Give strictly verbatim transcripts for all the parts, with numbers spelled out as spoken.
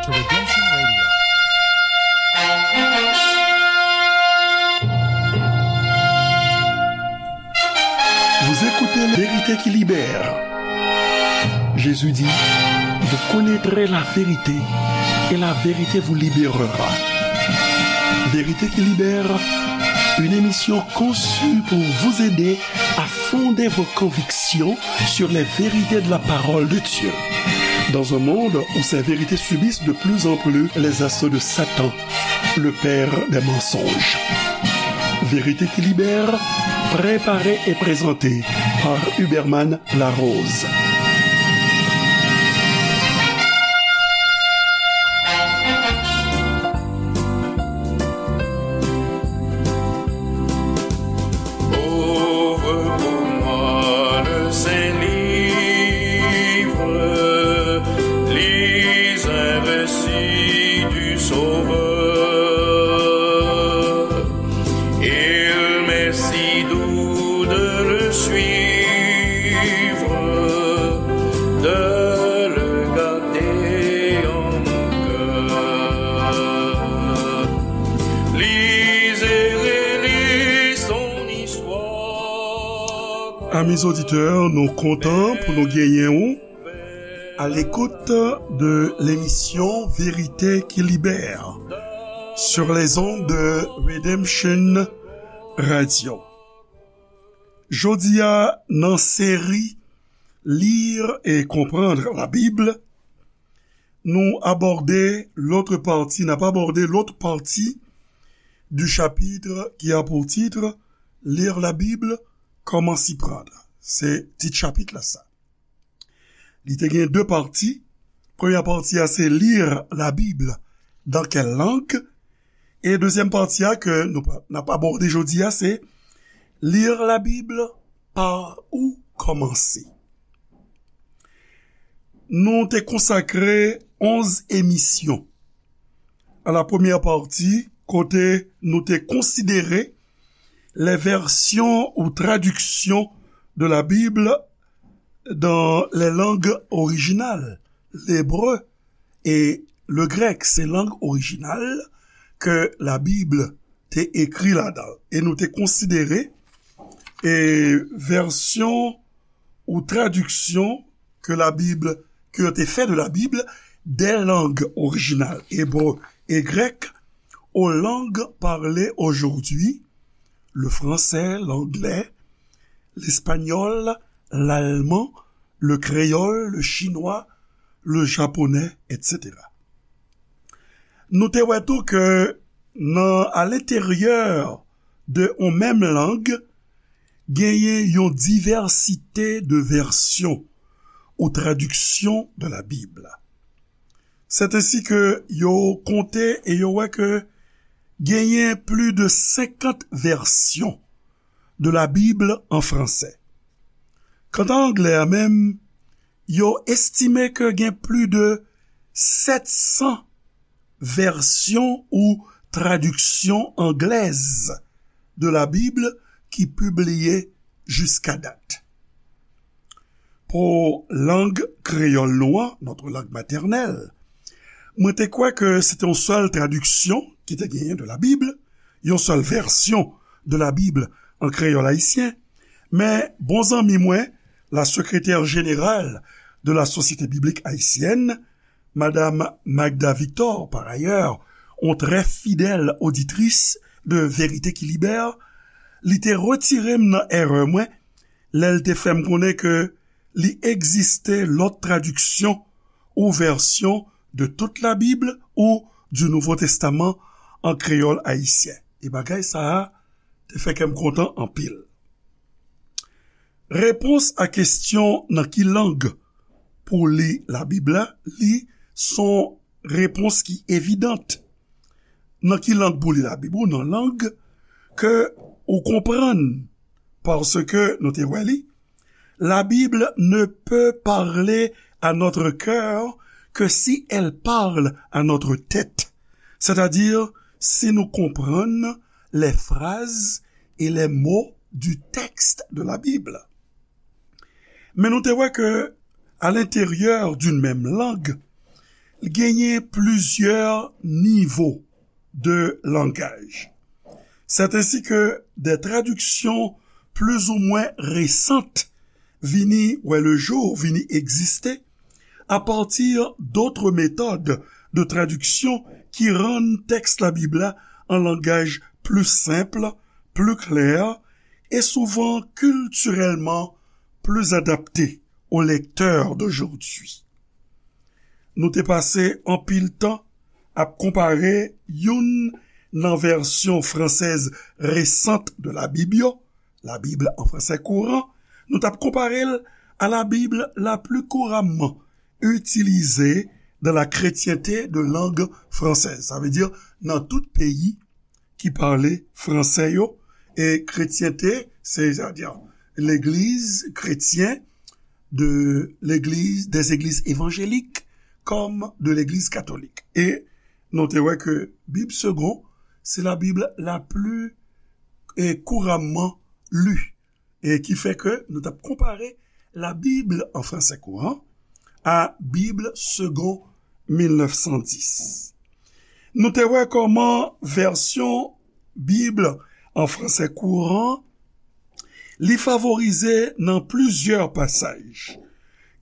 The Redemption Radio. Vous écoutez Vérité qui libère. Jésus dit, vous connaîtrez la vérité et la vérité vous libérera. Vérité qui libère, une émission conçue pour vous aider à fonder vos convictions sur les vérités de la parole de Dieu. Dans un monde où ces vérités subissent de plus en plus les assauts de Satan, le père des mensonges. Vérité qui libère, préparée et présentée par Huberman Larose. Ouvre pour moi le Saint-Livre, lis un récit du Sauveur. Il m'est si doux de le suivre, de le garder en mon cœur. Lis et relis son histoire. Amis auditeurs, nou kontan pou nou genyen w à l'écoute de l'émission Vérité qui libère sur les ondes de Redemption Radio. Jodi a, nan seri Lire et comprendre la Bible, nou abòde lòt pati, n ap abòde lòt pati du chapitre qui a pour titre Lire la Bible, comment s'y prendre. Se tit chapit la sa. Li te gen de pati. Premyè pati a se Lire la Bible, dans quelle langue? E dezyèm pati a ke nou pa- n ap abòde jodi a se Lire la Bible, par où commencer? Nou te konsakre onz emisyon a la premyè pati kote nou te konsidere les versions ou traductions de la Bible dans les langues originales, l'hébreu et le grec, se lang orijinal ke Labib te ekri ladan. E nou te konsidere e vèsyon ou tradiksyon ke Labib, ke yo te fè de Labib, des langues originales, hébreu et grec, aux langues parlées aujourd'hui, le français, l'anglais, l'espagnol, l'allemand, le créole, le chinois, le japonais, et cetera. Nou te wè tou ke nan, à l'intérieur de yon menm lang, genyen yon divèsite de vèsyon ou tradiksyon de la Bib. C'est ainsi que yo konte e yo wè ke genyen plis de senkant vèsyon de la Bible en français. Kanta anglè a menm, yo estime ke gen plis de sèt san vèsyon ou tradiksyon anglèz de la Bible ki pibliye jiska dat. Pou lang kreyòl nou an, notre langue maternelle, mwen te kwè ke se te yon sèl tradiksyon ki te genyen de la Bible, yon sèl vèsyon de la Bible an kreyòl ayisyen, men bon zanmi mwen, la secrétaire générale de la Société biblique haïtienne, Madame Magda Victor, par ailleurs, yon trè fidèl oditris de Vérité qui Libère, li te retire m nan erè mwen lè l te fè m konnen ke li egziste lòt tradiksyon ou vèsyon de toute la Bible ou du Nouveau Testament an kreyòl ayisyen. E bagay sa a te fè kè m kontan anpil. Repons a kesyon nan ki lang pou li Labib la, li se yon repons ki evidant. Nan ki lang pou li Labib ou? Nan lang ke ou konprann, paske nou te wè li, la Bible ne peut parler à notre cœur que si elle parle à notre tête, c'est-à-dire si nous comprenons les phrases et les mots du texte de la Bible. Men nou te wè ke, à l'intérieur d'une même langue, Genyen plizyè nivo de langaj. C'est ainsi que des traductions plus ou moins récentes vini wè le jour, vini egziste, à partir d'autres méthodes de traduction qui rendent texte la Bible la an langaj pli senp, pli klè e souvan kiltirèlman pli adapte aux lecteurs d'aujourd'hui. Nou te pase anpil tan ap konpare youn nan vèsyon fransèz resant de la Bib yo, la Bible en français courant, nou t ap konpare l a la Bib la pli kouramman itilize dans la chrétienté de langue française. Sa vle di, nan tout peyi ki pale fransè yo, e kretyente, se, sa vle di, legliz kretyen de legliz, des églises évangéliques comme de l'église catholique. E nou te wè ke Bib Segond, se la Bib la pli, e, kouramman li. E ki fè ke nou t ap konpare la Bible en français courant à Bible Segond mil nèf san dis. Nou te wè kòman vèsyon Bib en français courant li favorize nan plizyè pasaj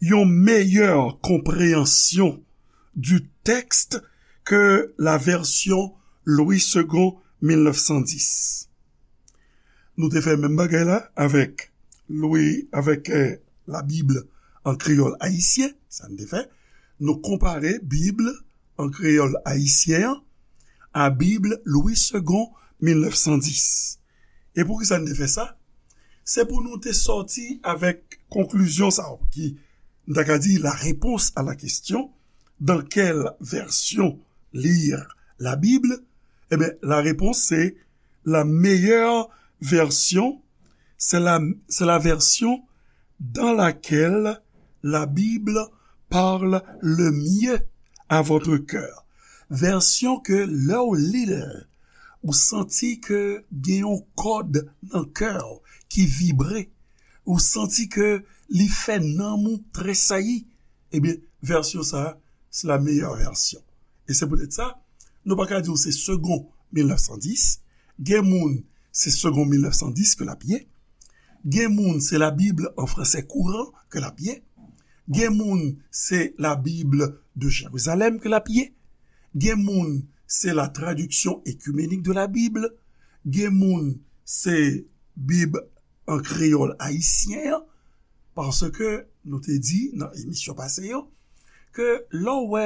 yon meyè konpreyansyon du texte ke la vèsyon Louis Segond mil nèf san dis. Nou te fè menm bagay la avèk Louis, avèk, eh, la Bib an kreyòl ayisyen, sa n te fè. Nou konpare Bib an kreyòl ayisyen an a Bib Louis Segond mil nèf san dis. E poukisa n te fè sa? Se pou nou te sòti avèk konklizyon sa a, ki, n ta ka di, la réponse à la question, dans quelle version lire la Bible? Ebyen, la réponse, c'est la meilleure version, c'est la, c'est la version dans laquelle la Bible parle le mieux à votre cœur. Vèsyon ke lè w li l, ou santi ke gen yon kòd nan kè w ki vibre, ou santi ke li fè nanm ou tresayi, ebyen, vèsyon sa a, se la meilleure version. E se poutèt sa, nou pa ka di w se Segond mil nèf san dis. Gen moun, se Segond mil nèf san dis ke l ap ye. Gen moun, se la Bible en français courant ke l ap ye. Gen moun, se la Bible de Jérusalem ke l ap ye. Gen moun, se la traduction écuménique de la Bible. Gen moun, se Bib an kreyòl ayisyen an. Paske nou te di nan emisyon pase yo, ke lè w wè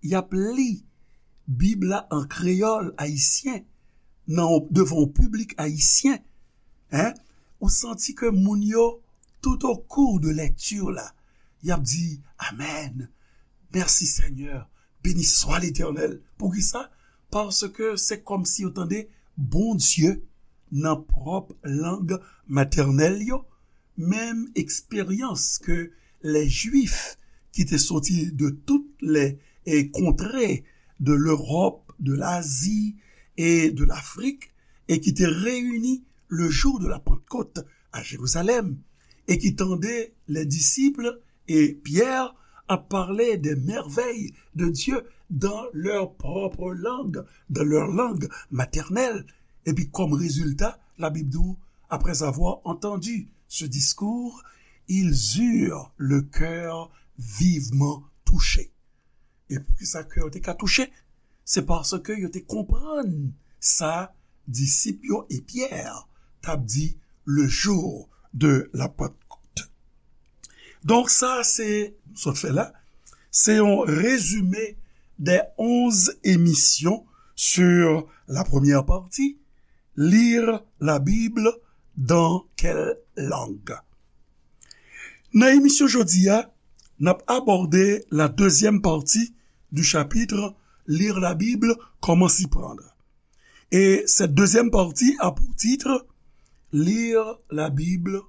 y ap li Bib la an kreyòl ayisyen, nan, devan yon piblik ayisyen, en, ou santi ke moun yo, tout au cours de lecture la, y ap di, Amèn, mèsi Senyè, beni swa Letènèl. Poukisa? Paske se kòmsi yo tande Bondye nan pwòp lang matènèl yo, menm eksperyans ke lè Jwif ki te soti de tout lè, e, kontrè de Lewòp, de Lazi e de Lafrik, e ki te reyini le jou de la Pantkòt a Jerizalèm, e ki tande lè disip e Pyè ap pale de mèvèy de Dye dans leur propre langue, dans leur langue maternelle. Epi kòm rezilta, Labib di w, après avoir entendu ce discours, ils eurent le cœur vivement touché. E poukisa kè yo te ka touche? Se paske yo te konprann sa disip yo e Pyè t ap di le jour de la Pentecôte. Donk sa se, sot fè la, se yon rezime des onze émissions sur la première partie, Lire la Bible dans quelle langue? Nan emisyon jodi a, n ap abòde la dezyèm pati du chapitre Lire la Bible, comment s'y prendre. Et cette deuxième partie a pour titre Lire la Bible,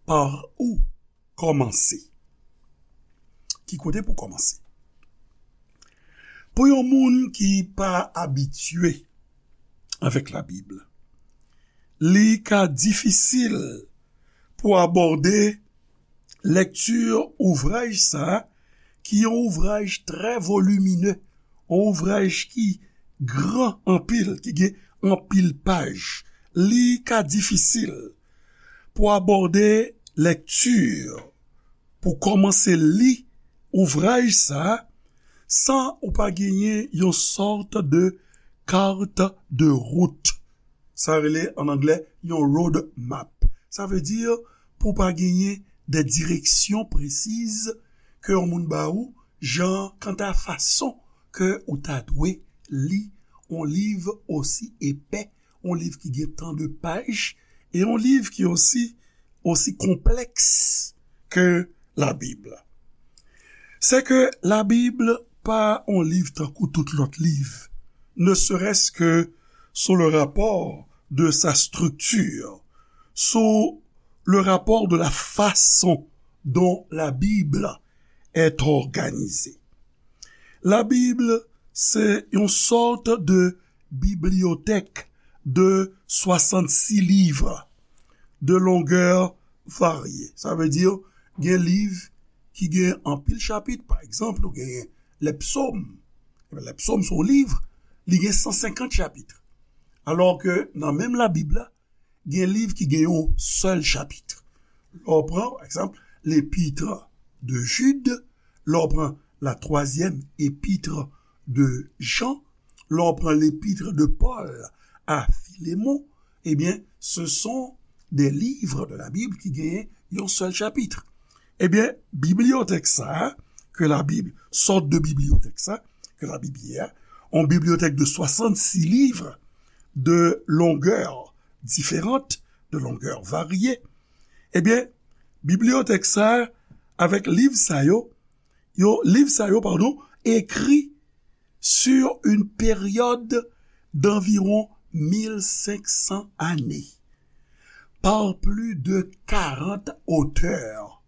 par où kòmanse. Ki kote pou kòmanse? Pou yon moun ki pa abitye avèk Labib, li ka difisil pou abòde lekti ouvraj sa a ki yon ouvraj trè volimine, yon ouvraj ki gran anpil, ki gen anpil paj. Li ka difisil pou abòde lekti, pou kòmanse li ouvraj sa a, san ou pa genyen yon sòt de carte de route. Sa rele an anglè yon road map. Sa vle di pou pa genyen de direksyon presiz ke yon moun ba ou, jan kanta fason ke ou ta dwe li yon liv osi epè, yon liv ki gen tan de paj, e yon liv ki osi, osi konplèks ke Labib. C'est que la Bible pa yon liv tankou tout lòt liv, ne serait-ce que sous le rapport de sa structure, sous le rapport de la façon dont la Bible est organisée. La Bible, c'est une sorte de bibliothèque de soixante-six livres de longueur variée. Sa vle di, gen liv ki gen anpil chapit. Pa egzanp, ou gen Lèpsòm. Lèpsòm se yon liv, li gen san senkant chapit. Alò ke nan menm Labib la, gen liv ki gen yon sèl chapit. Lè w pran, pa egzanp, L'Épître de Jude, lè w pran la troisième épître de Jean, lè w pran l'Épître de Paul à Philémon, eh bien, ce sont des livres de la Bible ki genyen yon sèl chapit. Eh bien, bibliyotèk sa a, ke Labib, sòt de bibliyotèk sa, ke Labib ye a, yon bibliyotèk de soixante-six livres de longueur différente, de longueur variée, eh bien, bibliyotèk sa a, avèk liv sa yo, yo, liv sa yo, padon, ekri sur une période d'environ mil cinq cents années, par plus de quarante auteurs.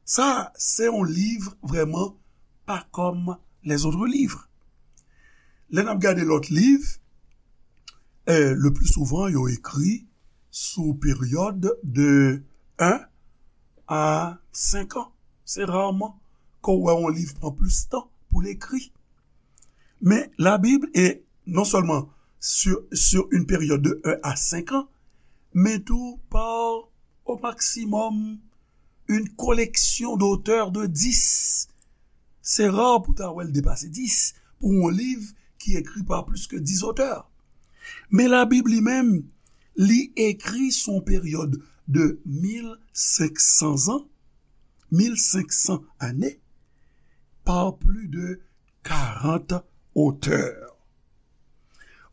Sa, se yon liv vrèman pa kòm lèzòt liv. Lè n ap gade lòt liv, eh, le plus souvent, yo ekri sou peryòd de un à cinq ans. Se raman ke w wè yon liv pran plis tan pou l ekri. Men Labib, e non sèlman sur, sur une période de un à cinq ans, men tou par, au maximum, une collection d'auteurs de dix. Se ra pou ta wè l depase dis pou yon liv ki ekri pa plis ke dis otè. Men Labib li menm, li ekri sou yon peryòd de mil senk san zan, mil senk san ane, par plus de quarante auteurs.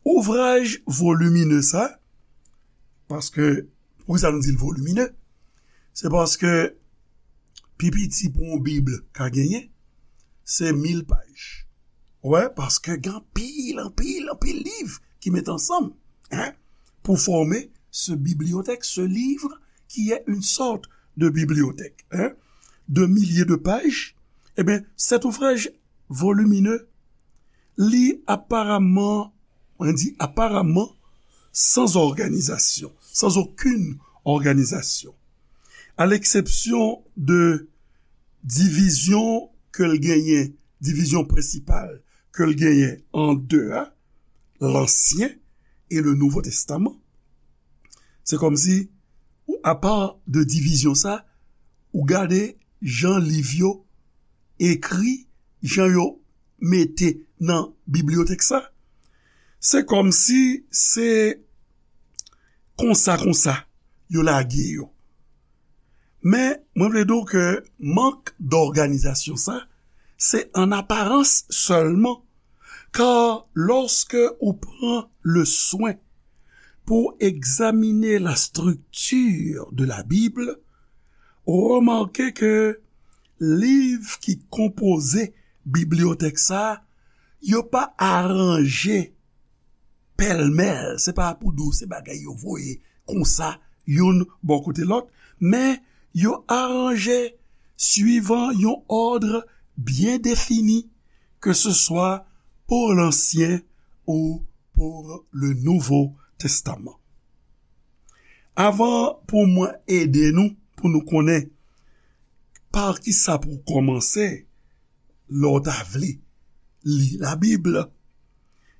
Ouvraj volimine sa, paske, poukisa nou di l volimine? Se paske pi piti pou yon Bib ka genyen, se mil paj. Wè, paske gen anpil, anpil, anpil liv ki met ansanm, hein, pour former ce bibliothèque, ce livre qui est une sorte de bibliothèque, hein, de milliers de pages. Eh bien, cet ouvrage volumineux, li apparemment, on dit apparemment, sans organisation, sans aucune organisation. À l'exception de divizyon ke l genyen, divizyon prensipal ke l genyen an de a, Lansyen e le Nouvo Testaman. Se kòmsi, apa de divizyon sa, ou gade jan liv yo ekri, jan yo mete nan bibliyotèk sa, se kòmsi se konsa, konsa, yo lage yo. Men, mwen vle di w ke mank dòganizasyon sa, se an aparans sèlman, kar lòske ou pran le swen pou egzamine la strikti de la Bib, ou remake ke liv ki konpoze bibliyotèk sa, yo pa aranje pèlmèl, se pa pou di w se bagay yo voye konsa, youn bò kote lòt, men yo aranje swivan yon òd byen defini, ke se swa pou Lansyen ou pou le Nouvo Testaman. Avan pou mwen ede nou, pou nou konnen pa kisa pou kòmanse, lè w ta vle li Labib,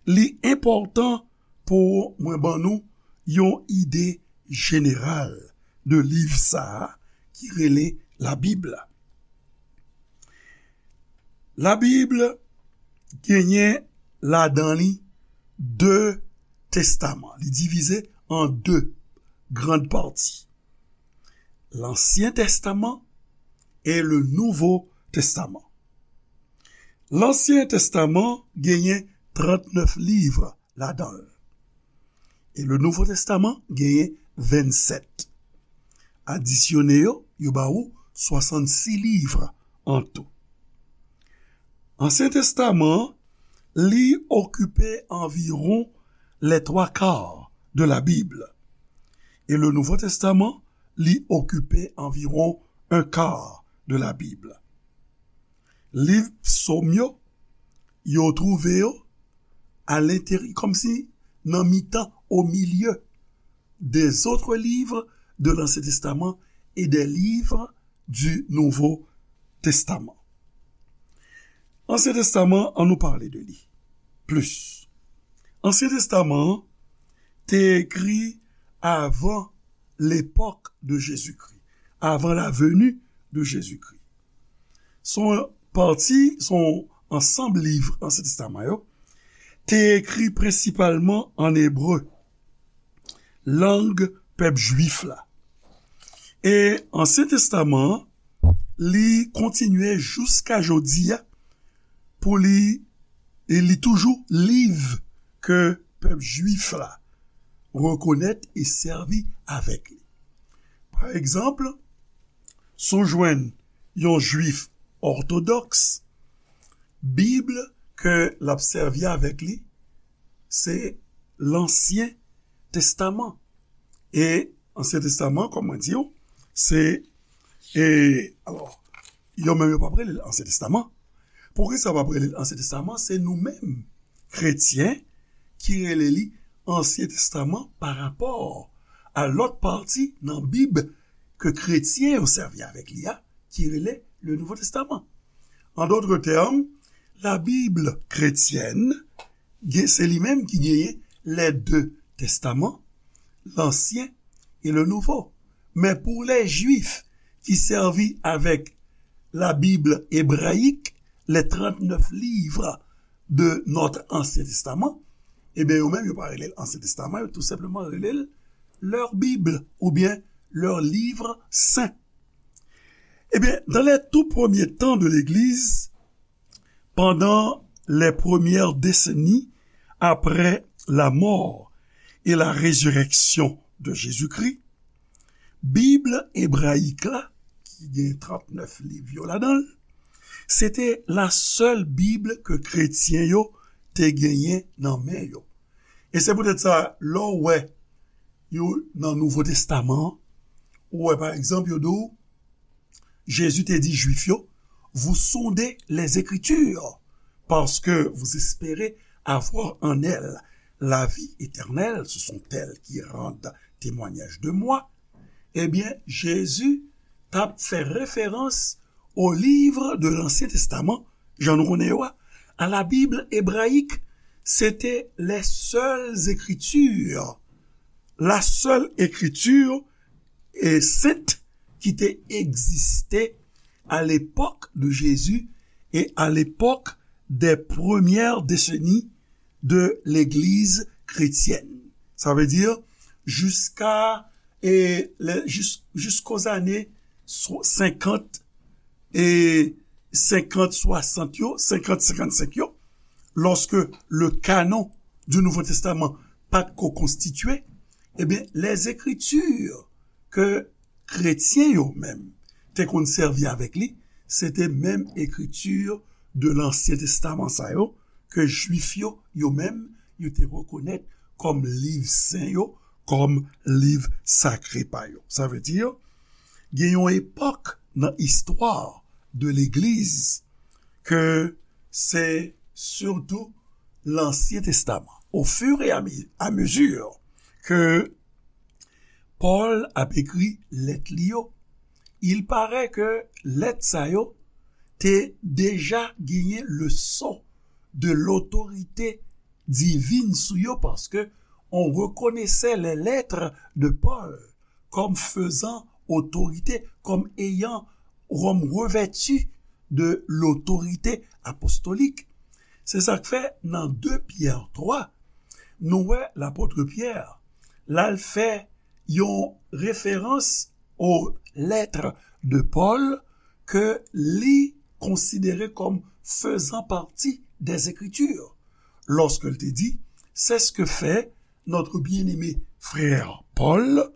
li enpòtan pou mwen ban nou yon ide jeneral de liv sa a ki rele Labib la. Labib genyen ladan li de testaman. Li divize an de grann pati. Lansyen Testaman e le Nouvo Testaman. Lansyen Testaman genyen trannèf liv ladan l. E le Nouvo Testaman genyen vennsèt. Adisyone yo, yo ba ou swasannsis liv an tou. Ansyen Testaman an, li okipe anviwon les trois quarts de la Bible. E le Nouvo Testaman, li okipe anviwon un quart de la Bible. Liv Psaume yo, yo twouve yo à l'intérieur, kòmsi nan mitan, au milieu des autres livres de l'Ancien Testament et des livres du Nouveau Testament. Ansyen Testaman, an nou pale de li plis. Ansyen Testaman an te ekri avan l'époque de Jésus-Christ, avant la venue de Jésus-Christ. Son pati, son ansanm liv Ansyen Testaman yo, te ekri prensipalman an ebre, lang pèp jwif la. E Ansyen Testaman an, li kontinye jiska jodi a pou li, e li toujou liv ke pèp jwif la rekonèt e sèvi avèk li. Pa egzanp, si w jwenn yon jwif òtodòks, Bib ke l ap sèvi avèk li, se Lansyen Testaman. E Ansyen Testaman, kòm mwen di w, se, e, alò, yo menm yo p ap rele l Ansyen Testaman. Poukisa yo p ap rele l Ansyen Testaman? Se nou menm, kretyen, ki rele li Ansyen Testaman pa rapò a lòt pati nan Bib ke kretyen yo sèvi avèk li a, ki rele le Nouveau Testament. En d'autres termes, la Bible chrétienne, gen, se li menm ki genyen les deux testaments, l'Ancien et le Nouveau. Men pou lè Jwif ki sèvi avèk la Bible hébraïque, les trente-neuf livres de notre Ancien Testament, ebyen, yo menm, yo pa rele l Ansyen Testaman, yo tou senpleman rele l leur Bible oubyen leur livre saint. Ebyen, dans les tout premiers temps de l'Église, pendant les premières décennies après la mort et la résurrection de Jésus-Christ, Bib ebrayik la, ki gen trannèf liv yo ladan l, se te la sèl Bib ke kretyen yo te genyen nan men yo. E se poutèt sa, lè w wè yo nan Nouvo Testaman an, ou wè, pa egzanp, yo di w, Jezi te di Jwif yo, vous sondez les Écritures, parce que vous espérez avoir en elles la vie éternelle, ce sont elles qui rendent témoignage de moi. Ebyen, Jezi t ap fè referans au livre de l'Ancien Testament, jan nou konnen yo a, à la Bible hébraïque, c'était les seules Écritures, la seule écriture et sainte qui te existait à l'époque de Jésus et à l'époque des premières décennies de l'Église chrétienne. Sa vle di, jiska, e, lè, jis, jiskòz ane so-, senkant, e, senkant, swasant yo, senkant, senkannsenk yo, lorsque le canon du Nouveau Testament pa t ko konstitye, ebyen, les Écritures ke kretyen yo menm te konn sèvi avèk li, se te menm ekriti de Lansyen Testaman sa yo, ke Jwif yo, yo menm, yo te rekonèt kòm liv sen yo, kòm liv sakre pa yo. Sa vle di, gen yon epòk nan istwa de legliz ke se sitou Lansyen Testaman. Au fur et à mi-, à mesure ke Pòl ap ekri lèt li yo, il paraît ke lèt sa yo te deja genyen leson de lotorite divin sou yo, paske on reconnaissait les lettres de Paul comme faisant autorité, comme ayant, comme revêtu de l'autorité apostolique. Se sa k fè nan de Pyè twa, nou wè lapot Pyè l al fè yon referans aux lettres de Paul ke li konsidere comme faisant partie des Écritures, lorsque il te dit, c'est ce que fait notre bien-aimé frère Paul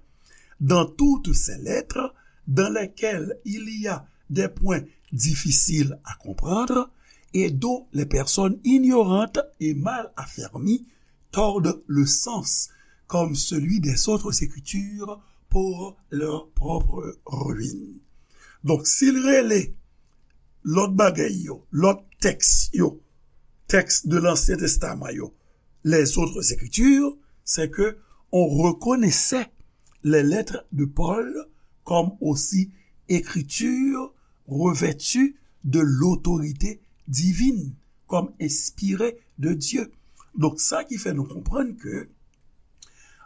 dans toutes ses lettres, dans lesquelles il y a des points difficiles à comprendre et dont les personnes ignorantes et mal affermies tordent le sens, comme celui des autres écritures, pour leur propre ruine. Donk, si l rele lòt bagay yo, lòt tèks yo, tèks de Lansyen Testaman yo, les autres écritures, c'est que on reconnaissait les lettres de Paul comme aussi écriture revêtue de l'autorité divine, comme inspirée de Dieu. Donk, sa ki fè nou konprann ke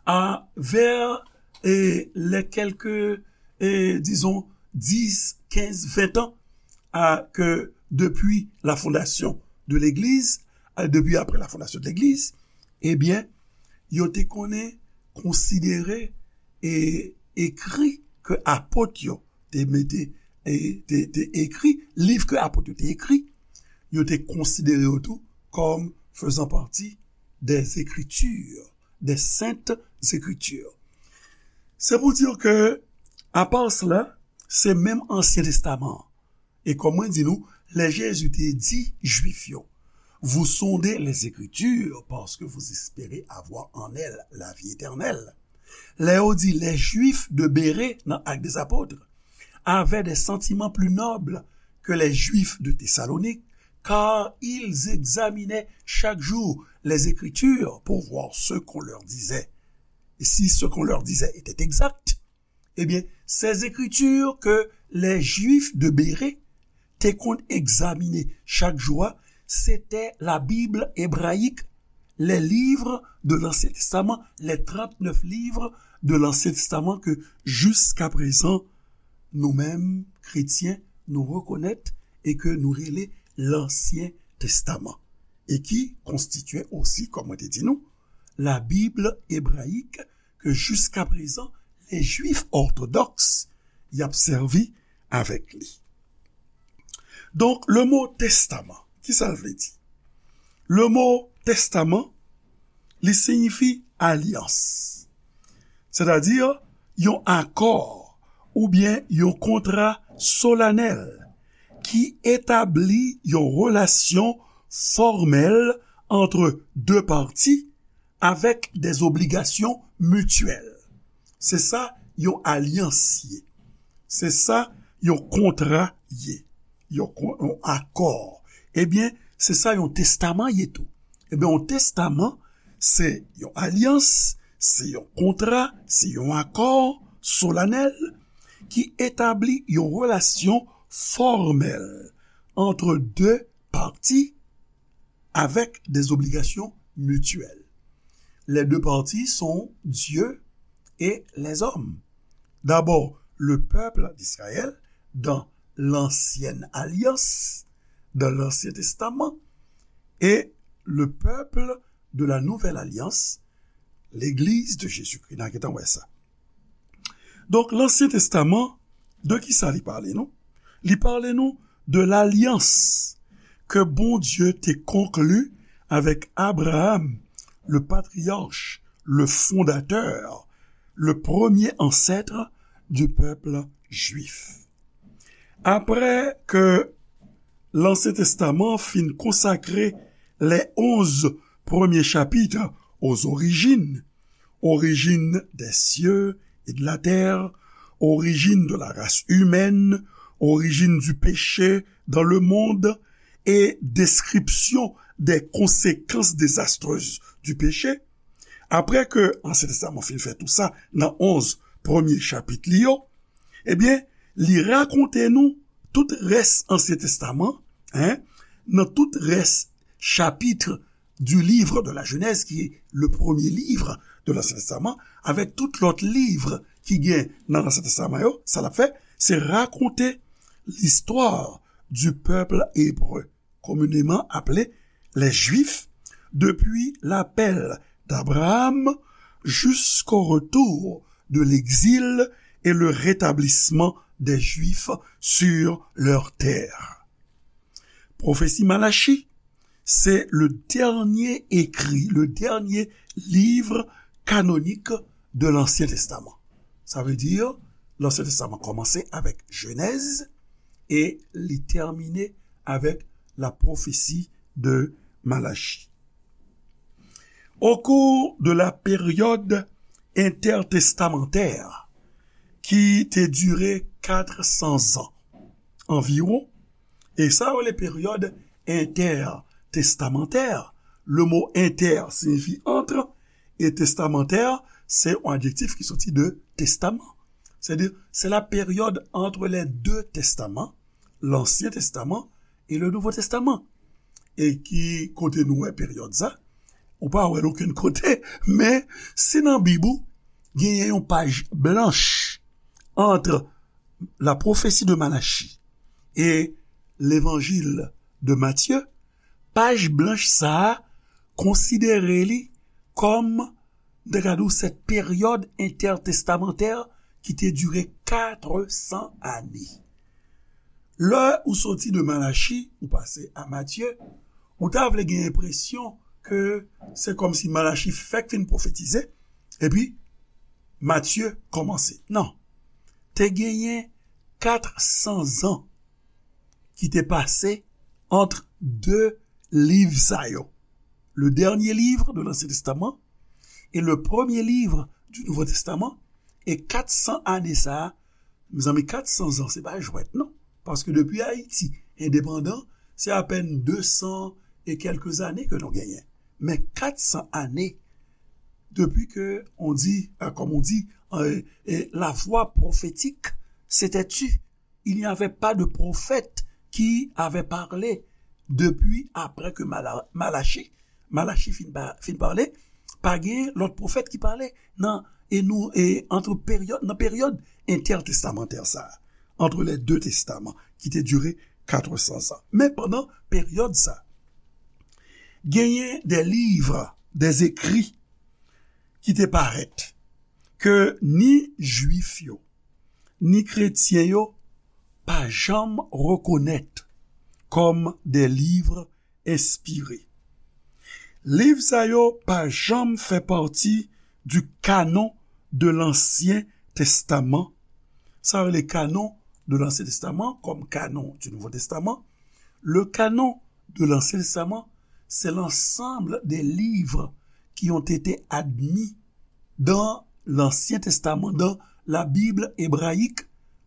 a, vers, eh, les quelques, eh, disons, dix, quinze, vingt ans, à, que depuis la fondation de l'Église, à, depuis après la fondation de l'Église, ebyen, yo te konnen konsidere e ekri ke apot yo te mete, e te, te ekri, liv ke apot yo te ekri, yo te konsidere yo tou comme faisant partie des Écritures, des Saintes Écritures. Se pou di ke, apa sela, se menm Ansyen Testaman an. E kòm mwen di nou, lè Jezi te di Jwif yo, vous sondez les Écritures parce que vous espérez avoir en elles la vie éternelle. Lè yo di les Juifs de Bérée nan Actes des Apôtres avaient des sentiments plus nobles que les Juifs de Thessalonique, car ils examinaient chaque jour les Écritures pour voir ce qu'on leur disait, et si ce qu'on leur disait était exact. Ebyen, ces écritures que les Juifs de Bérée te konn egzamine chak jou a, se te la Bible hébraïque, les livres de l'Ancien Testament, les trente-neuf livres de l'Ancien Testament ke jiskaprezan, nou menm, kretyen, nou rekonèt e ke nou rele Lansyen Testaman, e ki konstitye osi, kòm mwen te di nou, la Bible hébraïque ke jiskaprezan, les Juifs orthodoxes y ap sèvi avèk li. Donk, le mo testaman, ki sa l vle di? Le mo testaman, li siyifi alyans, sètadi yon akò oubyen yon kontra solanèl ki etabli yon relasyon fòmèl ant de pati avèk des obligations mutuelles. Se sa yon alyans ye. Se sa yon kontra ye. Yon kon-, yon akò. Ebyen, se sa yon testaman ye tou. Ebyen, yon testaman, se yon alyans, se yon kontra, se yon akò solanèl ki etabli yon relasyon fòmèl ant de pati avec des obligations mutuelles. Les deux parties sont Dieu et les hommes. D'abord, le peuple d'Israël dans l'ancienne alliance, dans l'Ancien Testament, et le peuple de la nouvelle alliance, l'Église de Jésus-Christ. N a gentan wè sa. Donk, Lansyen Testaman, de ki sa li pale nou? Li pale nou de lalyans ke Bondye te konkli avèk Abraham, le patriarche, le fondateur, le premier ancêtre du peuple juif. Apre ke Lansyen Testaman fin konsakre les onze premiers chapitres aux origines, origine des cieux et de la terre, origine de la race humaine, origine du péché dans le monde et description des conséquences désastreuses du péché. Apre ke Ansyen Testaman fin fè tou sa nan onze premye chapit li yo, ebyen, li rakonte nou tout rès Ansyen Testaman, en, nan tout rès chapit du livre de la Genèse, ki est le premier livre de l'Ancien Testament, avèk tout lòt liv ki gen nan Ansyen Testaman yo, sa l ap fè, se rakonte l'histoire du peuple hébreu, communément appelé les Juifs, depuis l'appel d'Abraham jusqu'au retour de l'exil et le rétablissement des Juifs sur leur terre. Pwofesi Malachi, se le dènye ekri, le dènye liv kanonik de l'Ancien Testament. Sa vle di, l'Ancien Testament kòmanse avèk Jenèz e li tèmine avèk la pwofesi de Malachi. Au cours de la période intertestamentaire, ki te dire kat san zan anviwon, e sa yo rele peryòd entètestamantè. Le mo entè siyifi entre, e testamantè, se yon adjektif ki soti de testaman. C'est-à-dire, c'est la période entre les deux testaments, l'Ancien Testament et le Nouveau Testament. E ki kote nou wè peryòd sa? Ou pa wè l okenn kote, men si nan Bib ou genyen yon paj blanch entre la prophétie de Malachie et l'évangile de Matthieu, paj blanch sa a konsidere li kòm, m te ka di w, cette période intertestamentaire ki te dire kat san ane. Lè ou soti de Malachi, ou pase a Matye, ou ta vle gen enpresyon ke se kòmsi Malachi fèk fin pwofetize, epi Matye kòmanse. Non. Te genyen kat san zan ki te pase ant de liv sa yo. Le dernier livre de l'Ancien Testament et le premier livre du Nouveau Testament. E kat san ane sa a, mezanmi, kat san zan, se pa jwèt, non. Paske depi Ayiti endepandan, se apèn de san e kèlke zane ke nou genyen. Men kat san ane, depi ke on di, euh, comme on dit, euh, euh, la voix prophétique s'est tue. Il n'y avait pas de prophète qui avait parlé depuis après que Mala-, Malachi, Malachi fin, pa, fin pale, pa gen lòt pwofèt ki pale nan, e nou, e entre peryòd, nan peryòd entètestamantè sa, entre les deux testaments, ki te dire kat san zan. Men pandan peryòd sa, genyen de liv, de zekri ki te parèt, ke ni Jwif yo, ni kretyen yo pa janm rekonèt kòm de liv enspire. Liv sa yo pa janm fè pati du canon de l'Ancien Testament. Sa yo rele canon de l'Ancien Testament kòm canon du Nouveau Testament. Le canon de l'Ancien Testament, c'est l'ensemble des livres qui ont été admis dans l'Ancien Testament, dans la Bible hébraïque,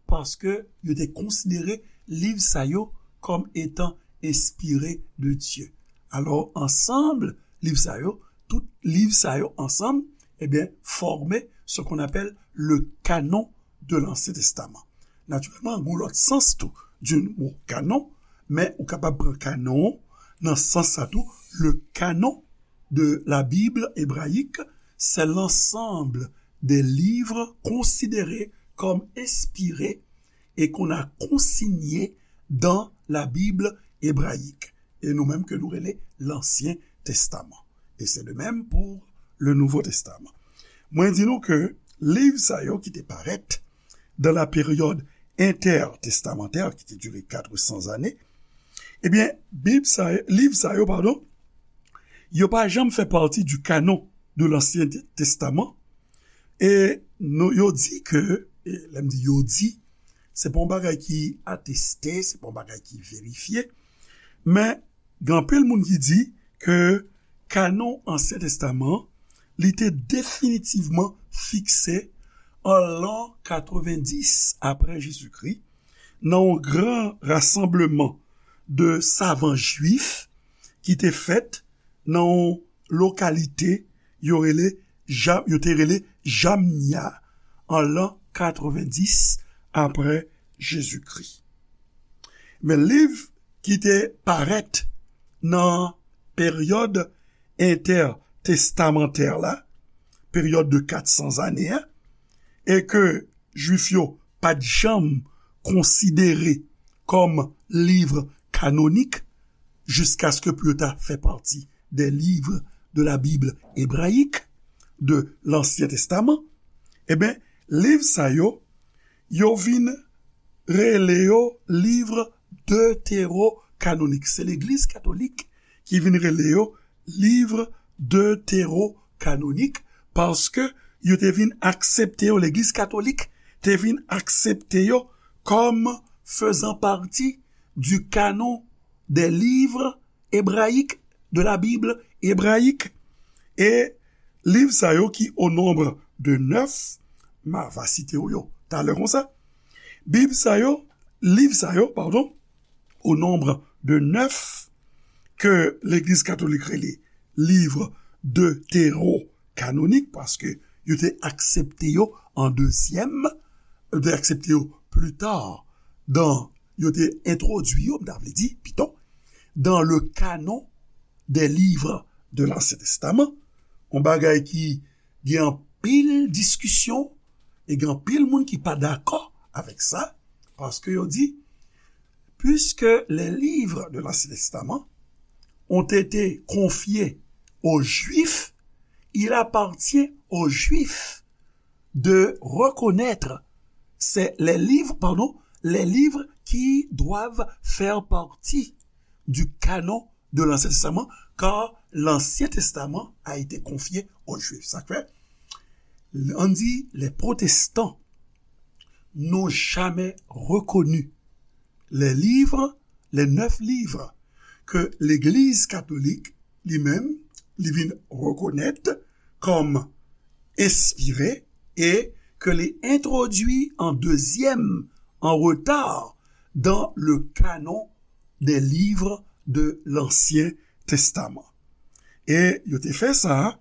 paske yo te konsidere liv sa yo kòm etan enspire de Dye. Alò, ansanm liv sa yo, tout liv sa yo ansanm, ebyen, fòme ce qu'on appelle le canon de l'Ancien Testament. Natirèlman, gen yon lòt sans tou du mo canon, men ou kapab pran canon nan sans sa tou, le canon de la Bible hébraïque, c'est l'ensemble des livres considérés comme inspirés et qu'on a consignés dans la Bible hébraïque. E nou menm ke nou rele l'Ancien Testament. Et c'est de même pour le Nouveau Testament. Mwen di nou ke liv sa yo ki te parèt dans la période intertestamentaire, ki te dire kat san zane, ebyen, Bib sa, liv sa yo, padon, yo pa janm fè pati du canon de l'Ancien Testament. E nou, yo di ke, e lè m di yo di, se pa yon bagay ki ateste, se pa yon bagay ki verifye, men gen anpil moun ki di ke kanon Ansyen Testaman, li te definitivman fikse an lan katrevendis apre Jezikri, nan yon gran rasanbleman de savan jwif ki te fèt nan yon lokalite yo rele Ja-, yo te rele Jamnia an lan katrevendis apre Jezikri. Men liv ki te parèt nan peryòd entètestamantè la, peryòd de kat san zane a, e ke Jwif yo pa t janm konsidere kòm liv kanonik, jiskaske pou yo ta fè pati des livres de la Bible hébraïque, de l'Ancien Testament, e ben, liv sa yo, yo vin rele yo liv detewo-kanonik. Se Legliz Katolik ki vin rele yo liv detewo-kanonik, paske yo te vin aksepte yo, Legliz Katolik te vin aksepte yo comme faisant partie du canon des livres hébraïques, de la Bible hébraïque. E liv sa yo ki o nonb de nèf, ma va site w yo talè konsa. Bib sa yo, liv sa yo, padon, o nonb de nèf ke Legliz Katolik rele liv detewo-kanonik, paske yo te aksepte yo an dezyèm, yo te aksepte yo pli ta, dan, yo te entwodui yo, m ta vle di, pito, dans le canon des livres de l'Ancien Testament, yon bagay ki gen anpil diskisyon, e gen anpil moun ki pa dakò avèk sa, paske yo di, puisque les livres de l'Ancien Testament ont été confiés aux Juifs, il appartient aux Juifs de reconnaître ces, les livres, pardon, les livres qui doivent faire partie du canon de l'Ancien Testament, car l'Ancien Testament a été confié aux Juifs. Sa fè, on dit, les protestants n'ont jamais reconnu les livres, les neuf livres que l'Église catholique, li menm, li vin reconnaître comme inspirés et que li introduit en deuxième, en retard, dans le canon des livres de l'Ancien Testament. E yo te fè sa,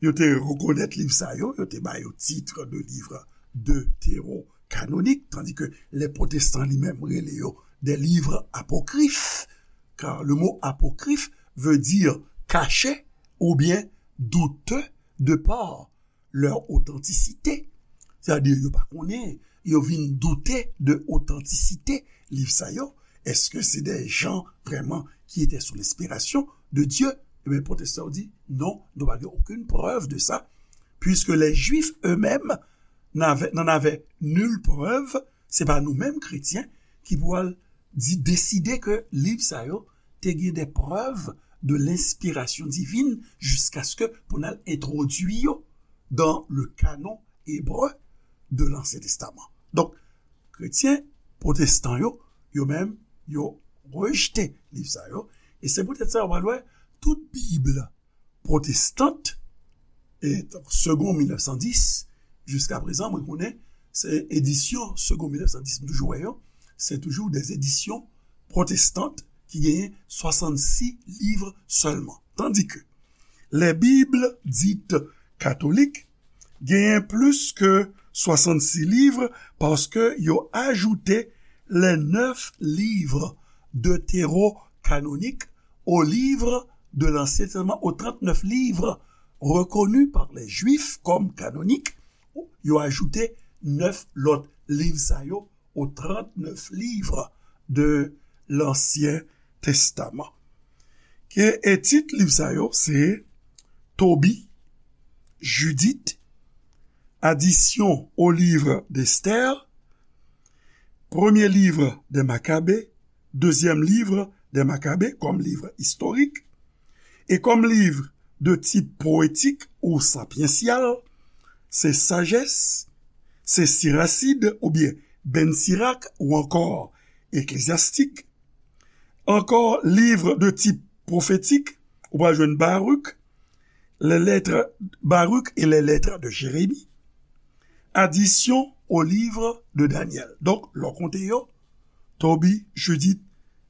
yo te rekonèt liv sa yo, yo te ba yo titre de livre deutéro-canonique, tandis que les protestants li menm rele yo des livres apocryphes, car le mot apocryphe veut dire caché ou bien douteux de par leur authenticité. Sètadi, yo pa konnen, yo vin doute de otantisite liv sa yo. Èske se de jan vrèman ki te sou lenspirasyon de Dye? Ebyen, pwotestan yo di, non, nou pa gen okenn prèv de sa, puisque les Juifs eux-mêmes n'avaient, n'en avaient nulle preuve, se pa nou menm kretyen ki pou al di, deside ke liv sa yo te gen de prèv de lenspirasyon divin jiskaske pou n al entwodui yo dans le canon hébreu de l'Ancien Testament. Donk, kretyen pwotestan yo, yo menm, yo rejte liv sa yo. E se poutèt sa, w pral wè, tout Bib pwotestant, e Segond mil nèf san dis, jiska prezan, mwen konnen, se edisyon Segond mil nèf san dis, m toujou wè yo, se toujou des éditions protestantes ki genyen swasannsis liv sèlman. Tandis que les Bibles dites catholiques genyen plis ke swasannsis liv paske yo ajoute les neuf livres deutéro-canoniques aux livres de l'Ancien Testament, aux trente-neuf livres reconnus par les Juifs comme canoniques. Yo ajoute nèf lòt liv sa yo aux trente-neuf livres de l'Ancien Testament. Ke, e tit liv sa yo, se Tobie, Judith, Addition au livre d'Esther, Premier livre des Maccabées, Deuxième livre des Maccabées, comme livre historique, et comme livre de type poétique ou sapiential, se Sagesse, se Siracide oubyen Ben Sirac ou ankò Ecclésiastique. Ankò, livre de type prophétique, ou pral jwenn Baruch, les lettres, Baruch et les lettres de Jérémie, Addition au livre de Daniel. Donk, lè w konte yo, Tobie, Judith,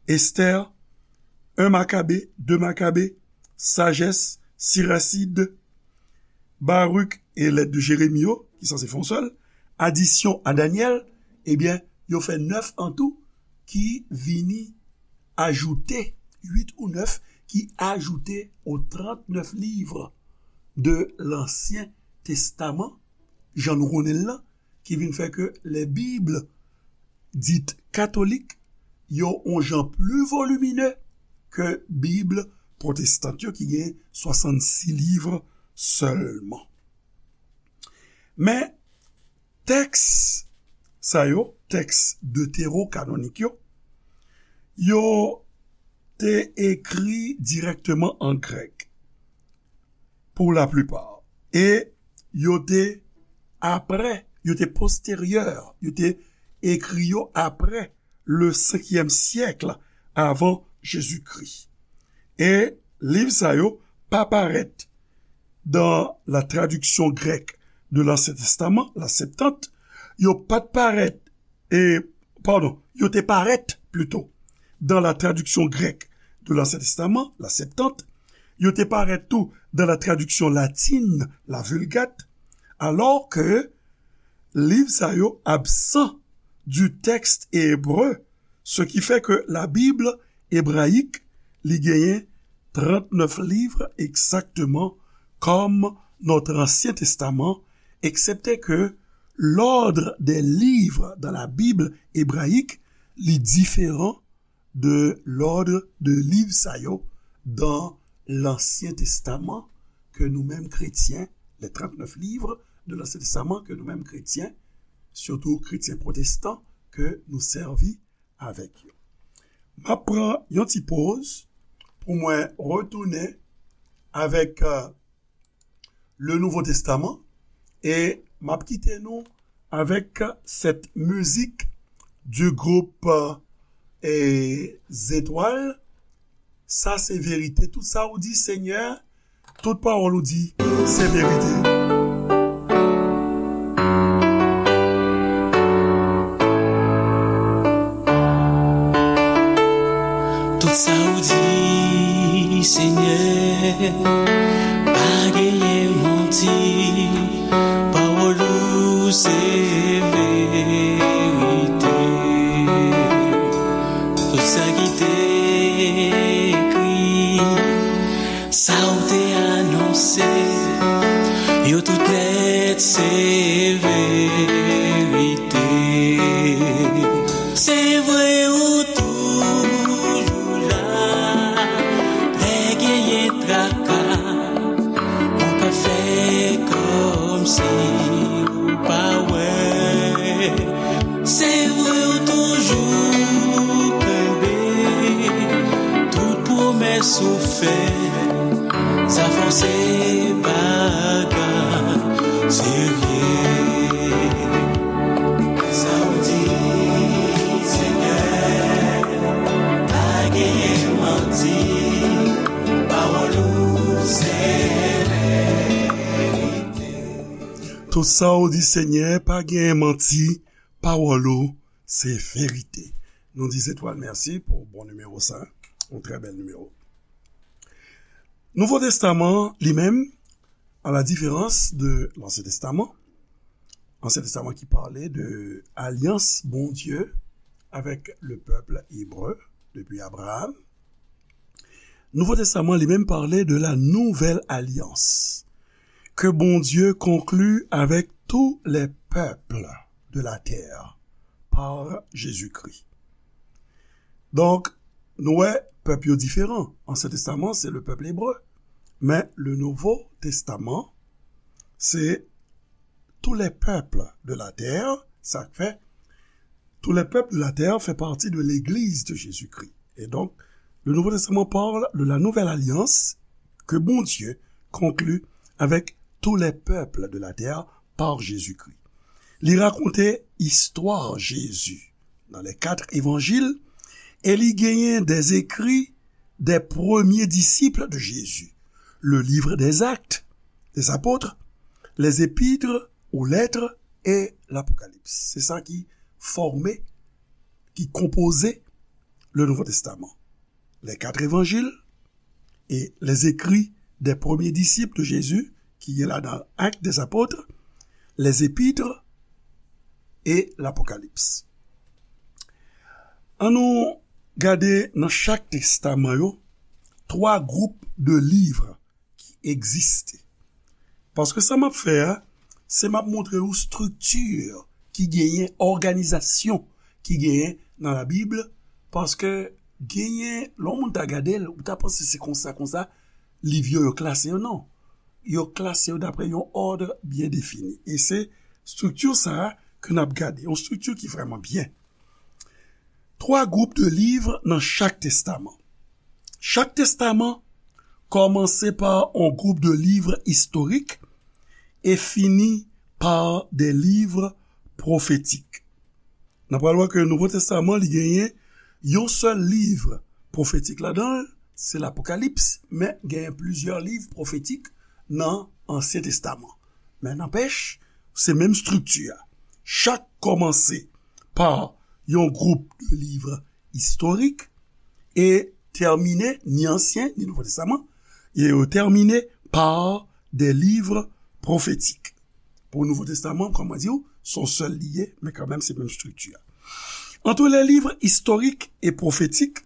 Esther, un Maccabée, deux Maccabées, Sagesse, Siracide, Baruch e lèt de Jeremi yo, ki sanse fè yon sèl, adisyon a Danyèl, ebyen, yo fè nèf an tou, ki vini ajoute, uit ou nèf, ki ajoute aux trente-neuf livres de l'Ancien Testament, jan nou konnen l lan, ki vin fè ke les Bibles dites catholiques yo on jan pli volimine ke Bib pwotestan yo ki gen swasannsis liv sèlman. Men, tèks sa yo, tèks deterokanonik yo, yo te ekri dirèkteman an grèk, pou laplipa. E yo te apre, yo te posteryè, yo te ekri yo apre le senkyèm syèk avan Jezikri. E liv sa yo pa parèt dans la traduction grecque de l'Ancien Testament, la Septante, yo pa t parèt, e, padon, yo te parèt, plito, dans la traduction grecque de l'Ancien Testament, la Septante, yo te parèt tou dans la traduction latine, la Vulgate, alors que liv sa yo absan du texte hébreu, ce qui fait que la Bible hébraïque, li genyen trente-neuf livres exactement comme notre Ancien Testament, excepté que l'ordre des livres dans la Bible hébraïque, li diferan de l'ordre de liv sa yo dans l'Ancien Testament que nous-mêmes chrétiens, les trente-neuf livres de l'Ancien Testament que nous-mêmes chrétiens, surtout chrétiens protestants, que nous servi avèk yo. M ap pran yon ti poz pou mwen retounen avèk, euh, le Nouveau Testament e m ap kite nou avec cette musique du groupe, euh, et Zétoile. Sa se verite. Tout sa ou di, Senyè, tout pawòl ou di, se verite. Tout sa ou di, Senyè, pa genyen manti. Pawòl ou se verite. Tout sa ki te ekri, sa ou te anonse, yo tout nèt se verite. Se vre ou toujou la, lè genyen traka, ou pa fè kòmsi ou pa wè. Se vre ou toujou kenbe tout pwomès ou fè. Sa fè w se bagay serye. Sa w di, Senyè, pa genyen manti. Pawòl ou se verite. Tout sa w di, Senyè, pa genyen manti. Pawòl ou se verite. Nou di Zetwal mèsi pou bon nimewo sa. Yon trè bèl nimewo. Nouvo Testaman, li menm, à la différence de l'Ancien Testament, Ancien Testament qui parlait de alliance Bondye avec le peuple hébreu depuis Abraham, Nouvo Testaman li menm pale de la nouvelle alliance que Bondye conclut avec tous les peuples de la terre par Jésus-Christ. Donk, nou wè, pèp yo diferan. Ansyen Testaman, se le pèp ebre. Men, le Nouvo Testaman, se tous les peuples de la terre, sa k fè, tous les peuples de la terre fait partie de l'Église de Jésus-Christ. Et donc, le Nouveau Testament parle de la nouvelle alliance que Bondye conclut avec tous les peuples de la terre par Jésus-Christ. Li rakonte istwa Jezi nan les quatre évangiles e li genyen des écrits des premiers disciples de Jésus, le livre des Actes des Apôtres, les épîtres ou lettres et l'Apocalypse. Se sa ki fòme, ki konpoze le Nouveau Testament. Les quatre évangiles et les écrits des premiers disciples de Jésus, ki gen ladan Actes des Apôtres, les épîtres et l'Apocalypse. An nou gade nan chak testaman yo twa gwoup de liv ki egziste. Paske sa m ap fè a, se m ap montre w estrikti ki genyen, òganizasyon ki genyen nan Labib, paske genyen, lè yon moun ta gade l, ou ta panse se konsa, konsa, liv yo, yo klase yo, non. Yo klase yo dapre yon òd byen defini. E se estrikti sa a ke n ap gade, yon estrikti ki vrèman byen. Twa gwoup de liv nan chak testaman. Chak testaman kòmanse pa yon gwoup de liv istorik e fini pa de liv pwofetik. N ap pral wè ke Nouvo Testaman, li genyen yon sèl liv pwofetik ladan l, se Lapokalips, men genyen plizyè liv pwofetik nan Ansyen Testaman. Men nanpèch, se menm estrikti a. Chak kòmanse pa yon gwoup de liv istorik e tèmine, ni Ansyen, ni Nouvo Testaman, e yo tèmine pa de liv pwofetik. Pou Nouvo Testaman, kòm mwen di w, se yon sèl li ye, men kanmenm se menm estrikti a. Entre les livres historiques et prophétiques,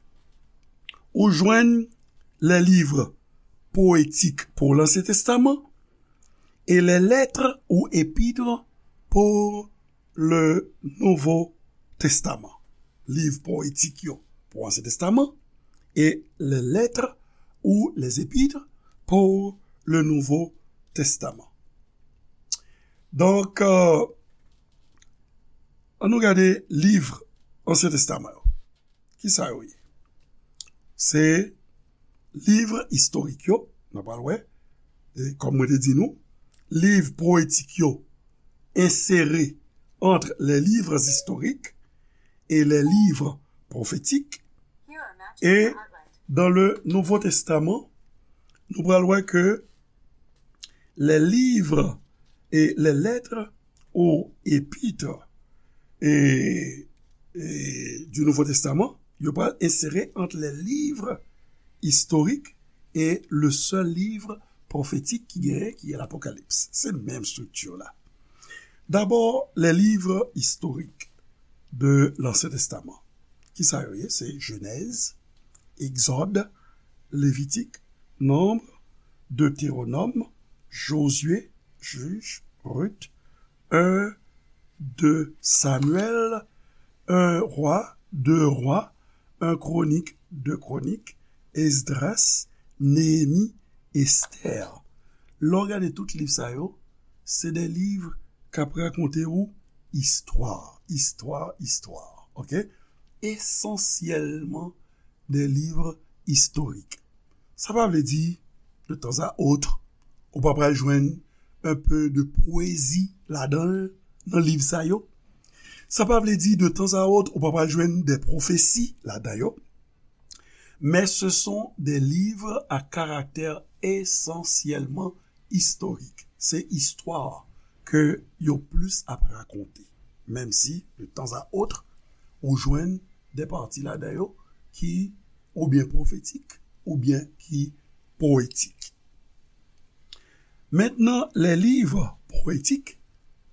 ou jwenn les livres poétiques pour l'Ancien Testament et les lettres ou épîtres pour le Nouveau Testament. Liv poetik yo pou Ansyen Testaman e les lettres ou les épîtres pour le Nouveau Testament. Donk, euh, an nou gade liv Ansyen Testaman yo. Kisa yo ye? Se liv istorik yo, n ap pral wè, e kòm mwen te di nou, liv poetik yo ensere entre les livres historiques et les livres prophétiques. Et dans le Nouveau Testament, nou pral wè ke les livres et les lettres ou épîtres et, et du Nouveau Testament, yo pral ensere entre les livres historiques et le seul livre prophétique ki genyen, ki est l'Apocalypse. Se menm estrikti la. D'abord, les livres historiques de l'Ancien Testament. Kisa yo ye? Se Jenèz, Egzòd, Levitik, Nonb, Deteronòm, Jozye, Jij, Rit, en, de Samyèl, en Rwa, de Rwa, en Kwonik, de Kwonik, Esdras, Neyemi, Estè. Lè w gade tout liv sa yo, se de liv k ap rakonte ou istwa, istwa, istwa, oke? Esansyèlman de liv istorik. Sa pa vle di, de tan a ot, ou pa pral jwenn un peu de pwezi ladan l, nan liv sa yo. Sa pa vle di, de tan a ot, ou pa pral jwenn de pwofesi ladan yo. Mais ce sont des livres à caractère essentiellement historique. Se istwa ke yo plis ap rakonte. Menm si, de tan a ot, ou jwenn de pati ladan yo ki oubyen pwofetik, oubyen ki poetik. Maintenant, les livres poétiques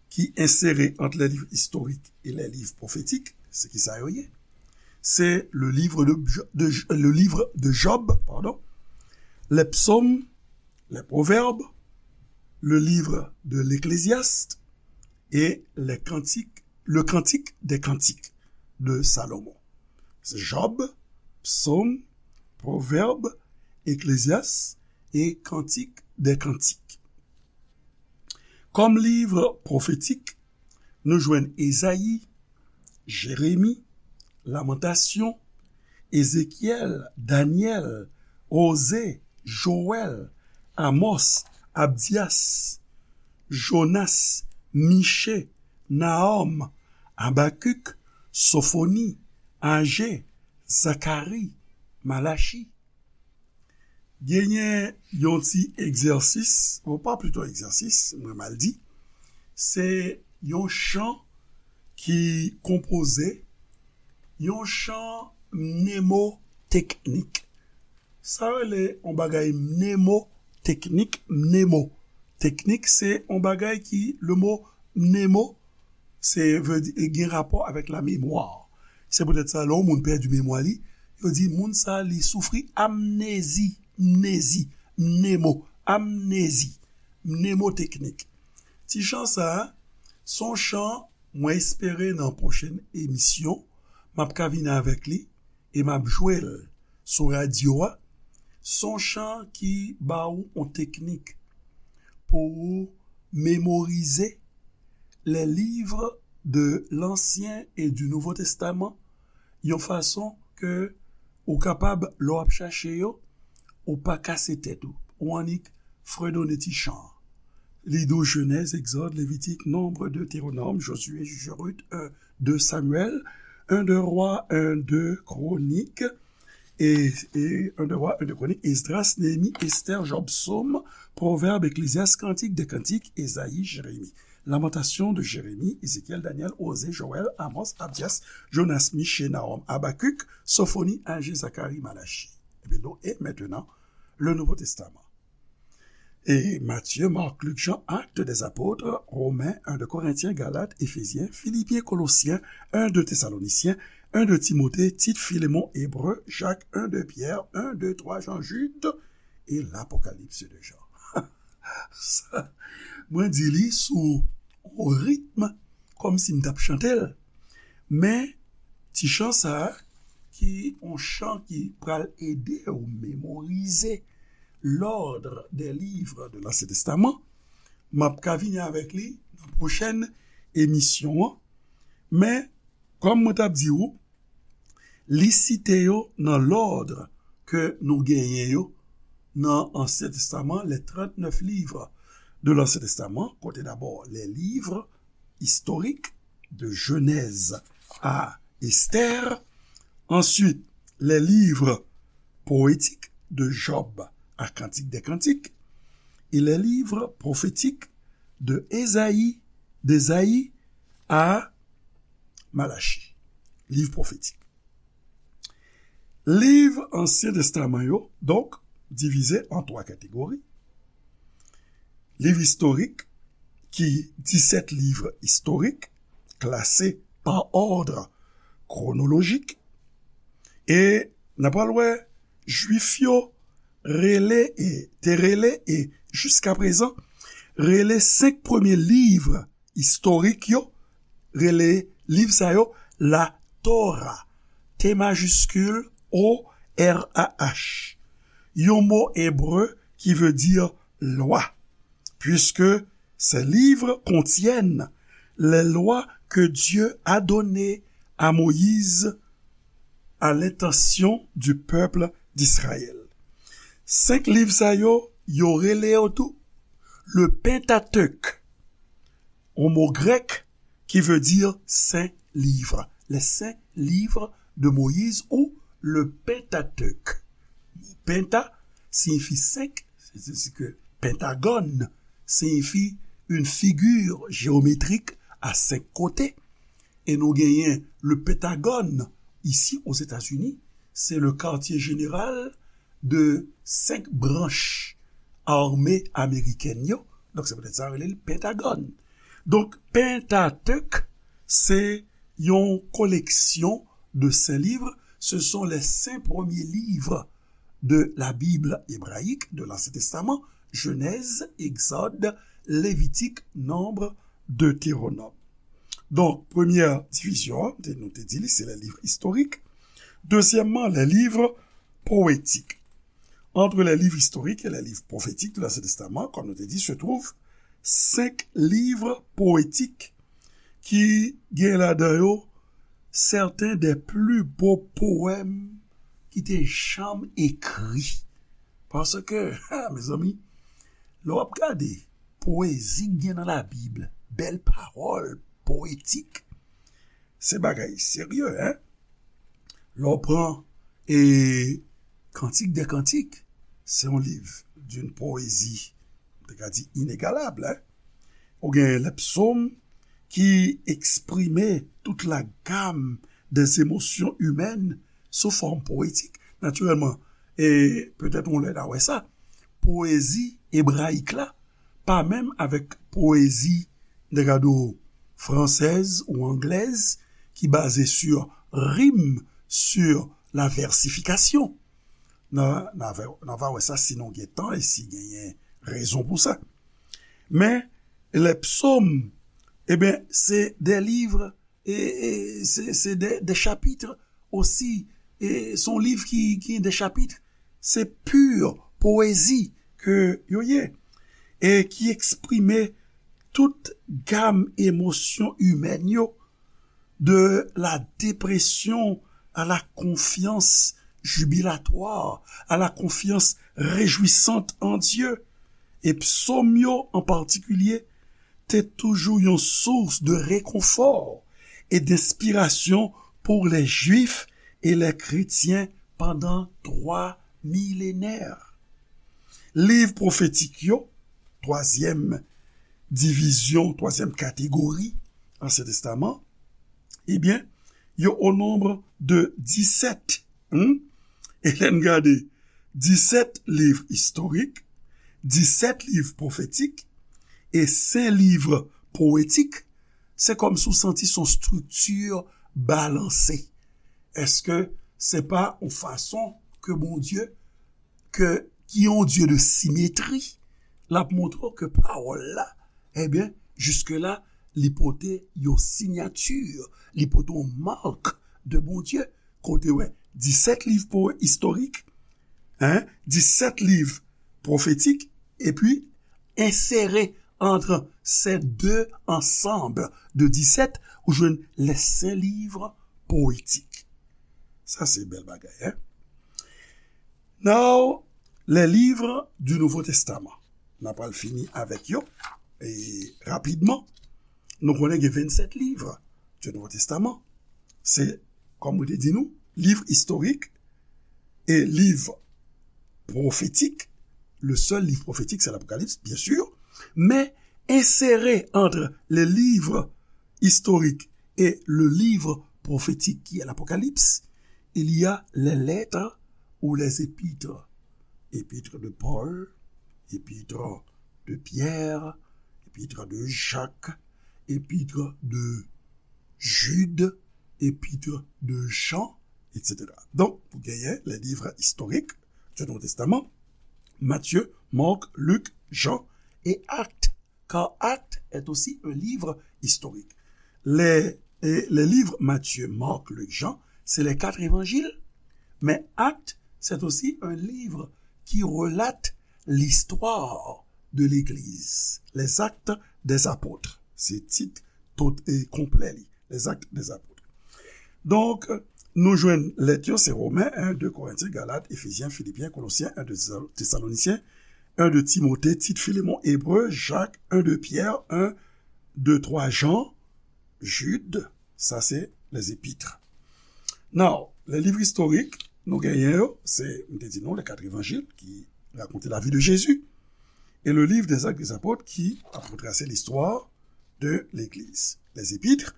qui insèrent entre les livres historiques et les livres prophétiques, se kisa yo ye? Se le livre de, de, le livre de Job, pardon, les psaumes, les proverbes, le livre de l'Ecclésiaste et les cantiques, le cantique des cantiques de Salomon. Se Job, Psaume, Proverbe, Ecclésiaste et Cantique des Cantiques. Kòm liv pwofetik, nou jwenn Ezayi, Jeremi, Lamantasyon, Ezekyèl, Danyèl, Oze, Jowèl, Amòs, Abdyas, Jonas, Miche, Nahòm, Abakik, Sofoni, Aje, Zakari, Malachi. Genyen yon ti egzèsis, bon, pa plito egzèsis, mwen mal di, se yon chan ki konpoze, yon chan mnemoteknik. Sa rele yon bagay mnemoteknik, mnemoteknik, se yon bagay ki, le mo mnemo, se vle di, gen rapò avèk la memwa. Se poutèt sa, lè yon moun pèdi memwa li, yo di moun sa li soufri amnezi, mnezi, mnemo, amnezi, mnemoteknik. Ti chan sa a, se yon chan mwen espere nan pwochèn emisyon, m ap ka vini avèk li e m ap jwe l sou radyo a. Se yon chan ki ba w yon teknik pou ou memorize les livres de l'Ancien et du Nouveau Testament yon fason ke ou kapab, lè w ap chache yo, ou pa kase tèt ou. Ou annik fredone ti chan an. Li di w Jenèz, Egzòd, Levitik, Nonb, Detewonòm, Jozye, Jij, Rit, en, de Samyèl, en de Rwa, en de Kwonik, e, e en de Rwa, en de Kwonik, Esdras, Neyemi, Estè, Jòb, Sòm, Pwovèb, Eklezyas, Kantik de Kantik, Ezayi, Jeremi. Lamantasyon de Jeremi, Ezekyèl, Danyèl, Oze, Jowèl, Amòs, Abdyas, Jonas, Miche, Nawòm, Abakik, Sofoni, Aje, Zakari, Malachi. Epi nou, e mentenan, le Nouvo Testaman. E Matye, Mak, Lik, Jan, Actes des Apôtres, Romen, en de Korentyen, Galat, Efezyen, Filipyen, Kolosyen, en de Tesalonisyen, en de Timote, Tit, Filemon, Ebre, Jak, en de Pyè, en de Twa Jan, Jid, e Lapokalips de Jan. Sa, mwen di li sou yon ritm kòmsi m t ap chante l. Men, ti chan sa a, ki yon chan ki pral ede w memorize l'ordre des livres de l'Ancien Testament, m ap ka vini avèk li nan pwochèn emisyon an. Men, kòm mwen t ap di w, li site yo nan lòd ke nou genyen yo nan Ansyen Testaman, les trente-neuf livres de l'Ancien Testament, kote dabò les livres historiques de Genèse à Esther, ensuite les livres poétiques de Job à Cantique des Cantiques, et les livres prophétiques de Ésaïe, d'Ésaïe à Malachi, liv pwofetik. Liv Ansyen Testaman yo, donk, divize an twa kategori. Liv istorik, ki disèt liv istorik, klase pa òd kwonolojik. E n ap pral wè, Jwif yo rele e te rele e jiskaprezan rele senk premye liv istorik yo, rele liv sa yo la Torah, T majiskil O R A H, yon mo ebre ki vle di lwa, puisque ces livres contiennent les lois que Dieu a données à Moïse à l'intention du peuple d'Israël. Senk liv sa yo, yo rele yo tou le Pentateuch, yon mo grèk ki vle di sen liv, les saints livres de Moïse ou le Pentateuch. Penta siyifi senk, c'est-à-dire que pentagone siyifi une figure géométrique à cinq côtés. E nou genyen le Pentagòn isi Ozetazini, se le quartier général de senk branch ame amerikèn yo. Donk, se poutèt sa yo rele l Pentagòn. Donk, Pentateuch, se yon koleksyon de sen liv. Ce sont les cinq premiers livres de la Bible hébraïque de l'Ancien Testament, Genèse, Exode, Lévitique, Nombre, Deutéronome. Donk, premyè divizyon an, te, nou te di li, se les livres historiques. Dezyèmman, les livres poétiques. Entre les livres historiques et les livres prophétiques de l'Ancien Testament, comme nous te dit, se trouvent cinq livres poétiques ki gen ladan yo certains des plus beaux poèmes ki te janm ekri. Paske, ha, mezanmi, lè w ap gade poezi k gen nan Labib, bèl pawòl poetik, se bagay serye, en. Lè w pran, e, Kantik de Kantik, se yon liv d'une poésie, m te ka di, inegalab, en. Ou gen les psaumes ki eksprime toute la gamme des émotions humaines sou fòm poetik. Natirèlman, e petèt yon lè n a wè sa, poezi ebrayik la pa menm avèk poezi, n te ka di w, fransèz ou anglèz, ki baze sur rime, sur la versification. Nan, nan, va- nan va wè sa si nou gen tan e si genyen rezon pou sa. Men, les psaumes, ebyen, se de liv, e, e se, se de, de chapit osi, e se yon liv ki, ki gen de chapit, se pur powezi ke yo ye, e ki eksprime tout gam emosyon imèn yo, de la dépression à la confiance jubilatoire, à la confiance réjouissante en Dieu. E psaumes yo, en particulier, te toujou yon source de réconfort et d'inspiration pour les Juifs et les chrétiens pendant trois millénaires. Liv pwofetik yo, twazyèm divizyon, twazyèm kategori Ansyen Testaman, ebyen, yo o nonb de disèt. Hmm? E lè n gade, disèt liv istorik, disèt liv pwofetik e senk liv powetik, se kòmsi w santi se yon estrikti balanse. Èske se pa yon fason ke Bondye, ke, ki yon Dye de simetri, l ap montre w ke pawòl la, ebyen, jiske la, li pote yon siyati, li pote yon mak de Bondye, kote wè disèt liv po istorik, hein, disèt liv pwofetik, epi ensere entre ces deux ensembles de disèt, ou jwenn les cinq livres poétiques. Sa se bèl bagay, hein? Now, les livres du Nouveau Testament. N a pral fini avèk yo. E rapidman, nou konnen gen vennsèt liv du Nouveau Testament. Se, kòm mwen te di nou, liv istorik e liv pwofetik. Le seul livre prophétique, c'est l'Apocalypse, bien sûr. Mais inséré entre les livres historiques et le livre prophétique qui est l'Apocalypse, il y a les lettres ou les épîtres. Épître de Paul, épître de Pierre, épître de Jacques, épître de Jude, épître de Jean, et cetera. Donk, ou genyen les livres historiques du Nouveau Testament, Matthieu, Marc, Luc, Jean et Actes, car Actes est aussi un livre historique. Les, et les livres Matthieu, Marc, Luc, Jean, c'est les quatre évangiles, mais Actes, c'est aussi un livre qui relate l'histoire de l'Église, les Actes des Apôtres. Se tit tot e konplè li, les Actes des Apôtres. Donk, nou jwenn lèt yo, se Women, en, de Korentyen, Galat, Efezyen, Filipyen, Kolosyen, en, de Tesalonisyen, en, de Timote, Tit, Filemon, Ebre, Jak, en, de Pyè, en, de, twa Jan, Jid, sa se les épîtres. Now, les livres historiques, nou genyen yo, se, m te di nou, les quatre évangiles qui racontent la vie de Jésus, et le livre des Actes des Apôtes qui a retracé l'histoire de l'Église. Les épîtres,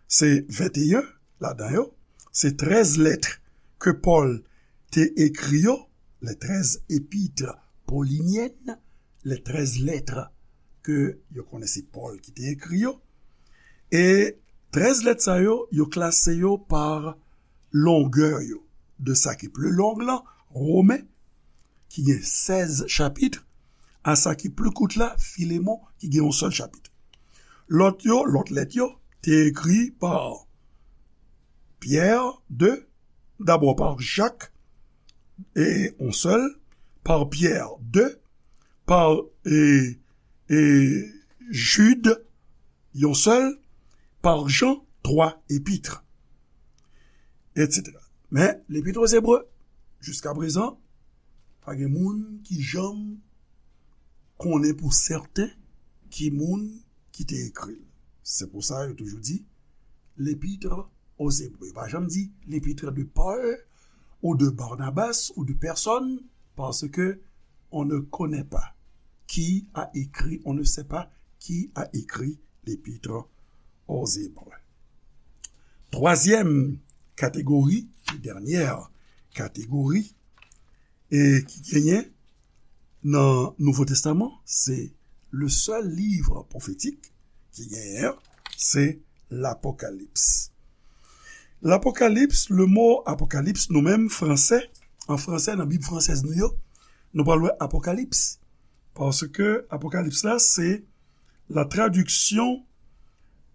se venteyen ladan yo, se trèz lèt ke Pòl te ekri yo, les treize épîtres pauliniennes, les treize lettres ke yo konnen se Pòl ki te ekri yo. E trèz lèt sa yo, yo klase yo pa longè yo. De sa ki pli long lan, Women, ki gen sèz chapit, a sa ki pli kout la, Filemon, ki gen yon sèl chapit. Lòt yo, lòt lèt yo, te ekri pa Pyè, de, dabò pa Jak, e yon sèl, pa Pyè, de, pa, e, e, Jid, yon sèl, pa Jan, twa épîtres, et cetera. Men, Lepit o Ebre, jiska prezan, pa gen moun ki janm konnen pou sèten ki moun ki te ekri l. Se pou sa yo toujou di Lepit o Ebre. Yo pa janm di Lepit de Pòl ou de Barnabas ou de pèsonn, paske on ne connaît pas qui a écrit, on ne sait pas qui a écrit l'Épître aux Hébreux. Twazyèm kategori, dènyè kategori, e ki genyen nan Nouvo Testaman, se le sèl liv pwofetik ki genyen an, se Lapokalips. Lapokalips, le mo apokalips, nou menm, fransè, an fransè, nan Bib fransèz nou yo, nou pral wè apokalips. Paske apokalips la, se la traduction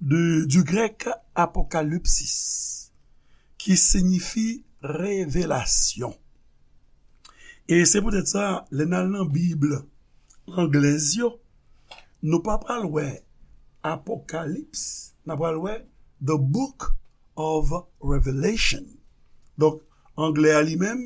de, du grec apocalypsis, ki siyifi revelasyon. E se poutèt sa, lè n al nan Bib anglèz yo, nou pa pral wè apokalips, n a pral wè the book of Revelation. Donk, anglè a li menm,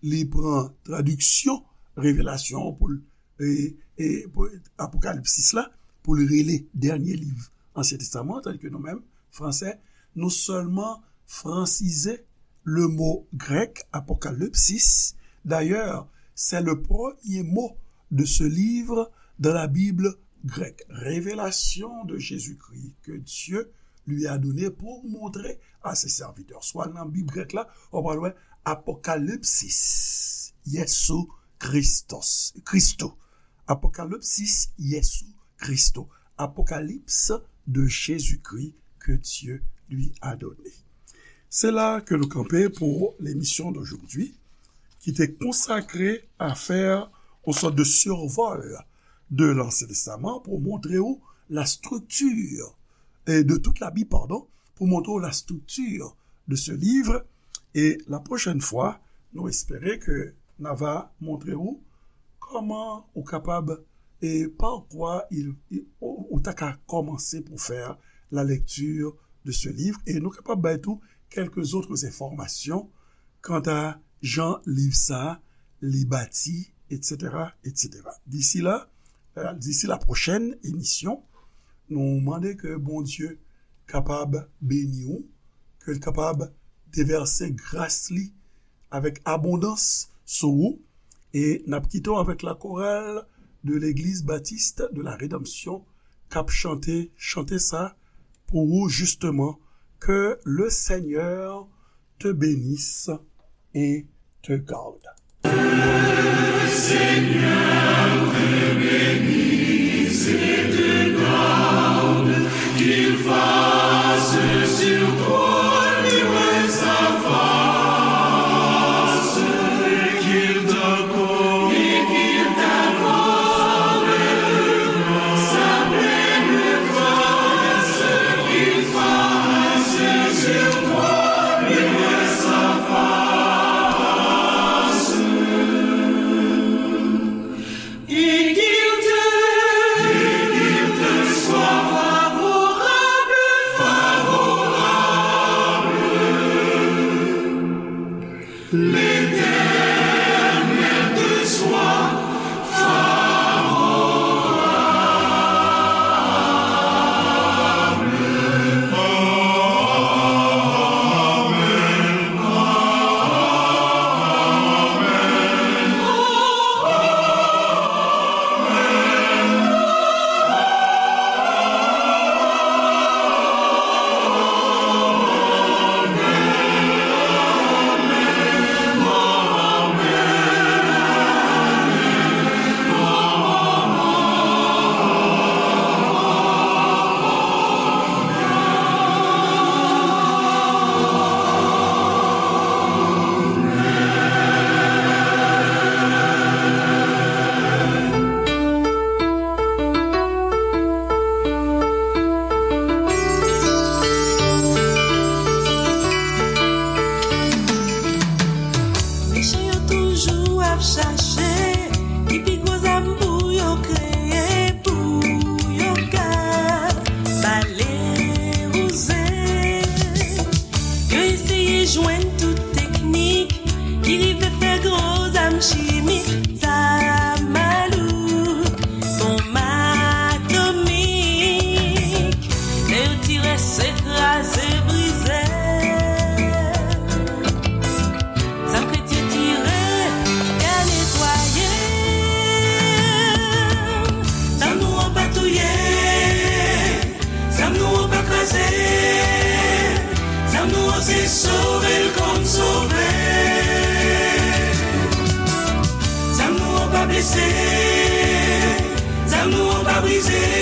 li pran tradiksyon revelasyon an pou l, e, e, pou apokalipsis la, pou l rele dènye liv Ansyen Testaman, tandis ke nou menm, fransè, nou sèlman fransize le mo grèk apokalipsis. D'ailleurs, c'est le premier mot de ce livre dans la Bible grecque. Révélation de Jésus-Christ que Dieu lui a donné pour montrer à ses serviteurs. Swa nan Bib grèk la, ou pral wè apokalipsis Yesu Christos, Christo. Apokalipsis Yesu Christo. Apocalypse de Jésus-Christ que Dieu lui a donné. C'est là que nous campons pour l'émission d'aujourd'hui, qui était consacrée à faire une sorte de survol de l'Ancien Testament pour montrer où la structure, et de toute la Bible, pardon, pour montrer où la structure de ce livre. E la pwochèn fwa, nou espere ke n a va montre ou kòman ou kapab, e pa kwa il, il, ou, ou ta ka kòmanse pou fè la lecture de ce livre. E nou kapab bay tou quelques autres informations kanta jan liv sa a li bati, et cetera, et cetera. D'ici là, euh, d'ici la prochaine émission, nou mande ke Bondye kapab beni ou, ke l kapab devèse gras li avèk abondans sou ou, e n ap kite w avèk la chorale de l'Église Baptiste de la Rédemption k ap chante, chante sa pou ou, justement, que le Seigneur te bénisse et te garde. Seigneur te bénisse et te garde, qu'il fasse sur toi luire sa face, et qu'il t'accorde, et qu'il t'accorde sa pleine grâce, qu'il fasse sur toi luire sa face. Et qu'il te, et qu'il te soit favorable, favorable. L'Éternel te soit favorable. Mechan yo toujou ap chache ki pi gwo zam pou yo kreye, pou yo ka bale wouze. Yo eseye jwenn tout teknik ki rive fè gwo zam chimik, zam malouk, bonm atomik. Lè yo tire, se kraze, brize. Zam kretyen tire, ya netwaye. Zam nou an pa touye. Zam nou an pa kraze. Zam nou an se sove l konn sove. Zam nou an pa blese. Zam nou an pa brize.